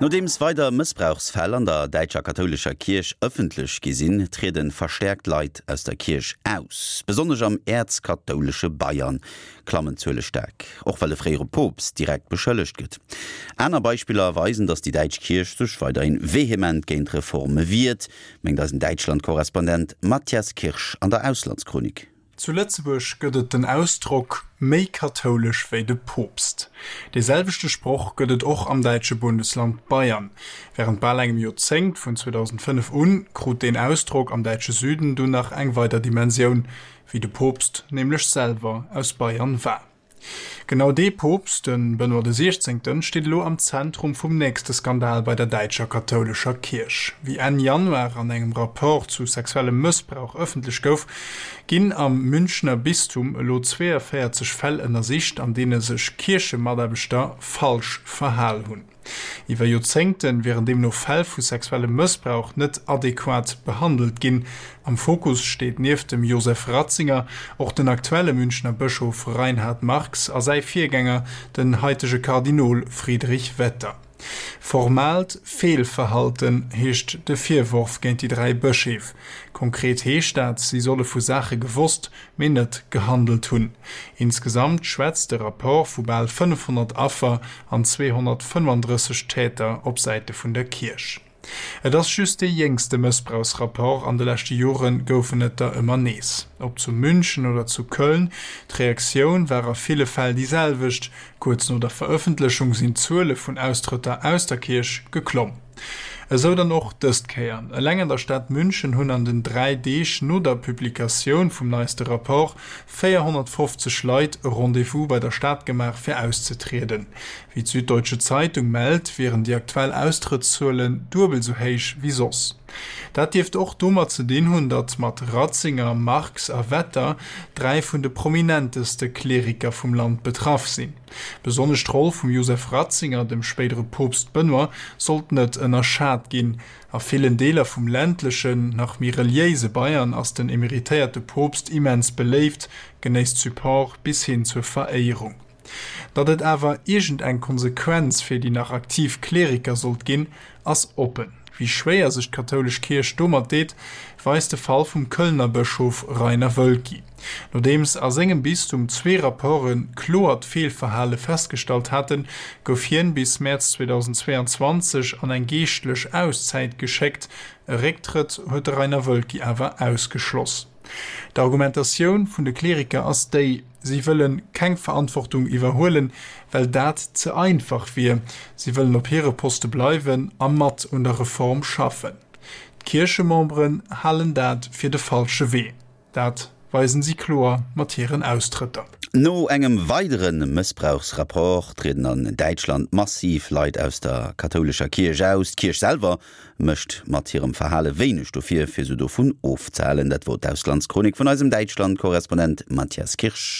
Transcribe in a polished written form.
Nodeems weider Mëssbrauchsfäll an der däitscher kathoulescher Kierch ëffentlech gi sinn, triede verstäerkt Leit aus der Kierch aus. Besonnesch am äerzkathoulesche Bayern klammen d'Zuele staark, och well e fréiere Poopst direkt beschëllegt gëtt. Aner Beispiller weisen, datt déi däitsch Kierch sech weiderhi vehement géint Reforme wiert, mengt eisen Däitschland-Korrespondent Matthias Kirsch an der Auslandschronik. Zu Lëtzebuerg gëtt et den Ausdrock méi kathoulesch wéi de Poopst. Dee selwechte Sproch gëtt et och am däitsche Bundesland Bayern. Wärend bal engem Joerzéngt, vun 2005 un, krut deen Ausdrock am däitsche Süden dunn nach eng weider Dimensioun, wéi de Poopst nämlech selwer aus Bayern war. Genau dee Poopst, de Benoît de Siechzéngten, steet elo am Zentrum vum nächste Skandal bei der däitscher kathoulescher Kierch. Wéi Enn Januar an engem Rapport zu sexuellem Mëssbrauch ëffentlech gouf, ginn am Münchner Bistum elo 42 Fäll ënnersicht, an deene sech Kierchemataarbechter falsch verhal hunn. Iwwer Joerzéngte wieren deemno Fäll vu sexuellem Mëssbrauch net adequat behandelt ginn. Am Fokus steet nieft dem Josef Ratzinger och den aktuelle Münchner Bëschof Reinhard Marx a säi Virgänger, den haitege Kardinol Friedrich Wetter. Formaalt Feelverhalten heescht de Virworf géint déi 3 Bëscheef. Konkret heescht dat, si solle vu Saache gewosst, mee net gehandelt hunn. Insgesamt schwätzt de Rapport vu bal 500 Affer an 235 Täter op Säite vun der Kierch. Et ass just dee jéngste Mëssbrauchsrapport, an de leschte Jore goufen et der ëmmer nees. Ob zu München oder zu Köln, d'Reaktioun war a ville Fäll déi selwecht, Kuerz no der Verëffentlechung sinn d'Zuele vun Austrëtter aus der Kierch geklomm. Esou dann och dëst Kéier. Eleng an der Stad München hunn an den 3 Deeg no der Publikatioun vum neiste Rapport 450 Leit e Rendez-vous bei der Stad gemaach fir auszetrieden. Wéi d'Süddeutsche Zeitung mellt, wieren déi aktuell Austrëttszuelen duebel esou héich wéi soss. Dat dierft och domat ze dinn hunn, datt mat Ratzinger, Marx a Wetter 3 vun de prominenteste Kleriker vum Land betraff sinn. Besonnesch d'Roll vum Josef Ratzinger, dem spéidere Poopst Benoît, sollt net ënnerschat ginn. A villen Deeler vum ländlechen, nach méi reliéise Bayern ass den emeritéierte Poopst immens beléift, genéisst Support bis hin zur Veréierung. Datt et awer iergend eng Konsequenz fir déi nach aktiv Kleriker sollt ginn, ass oppen. Wéi schwéier sech d'kathoulesch Kierch domat deet, weist de Fall vum Kölner Bëschof Rainer Woelki. Nodeems a sengem Bistum zwee Rapporte kloert Feelverhale festgestallt haten, gouf hien bis Mäerz 2022 an eng geeschtlech Auszäit geschéckt. E Récktrëtt huet de Rainer Woelki awer ausgeschloss. D'Argumentatioun vun de Kleriker ass déi, si wëlle keng Verantwortung iwwerhuelen, well dat ze einfach wier. Si wëllen op hire Poste bleiwen a mat un der Reform schaffen. D'Kierchememberen halen dat fir de falsche Wee. Dat weisen si kloer mat hiren Austrëtter. No engem weidere Mëssbrauchsrapport trieden an Däitschland massiv Leit aus der kathoulescher Kierch aus. D'Kierch selwer mécht mat hirem Verhale wéineg dofir, fir se dovun ofzehalen. Dat wor d'Auslandschronik vun eisem Däitschland-Korrespondent Matthias Kirsch.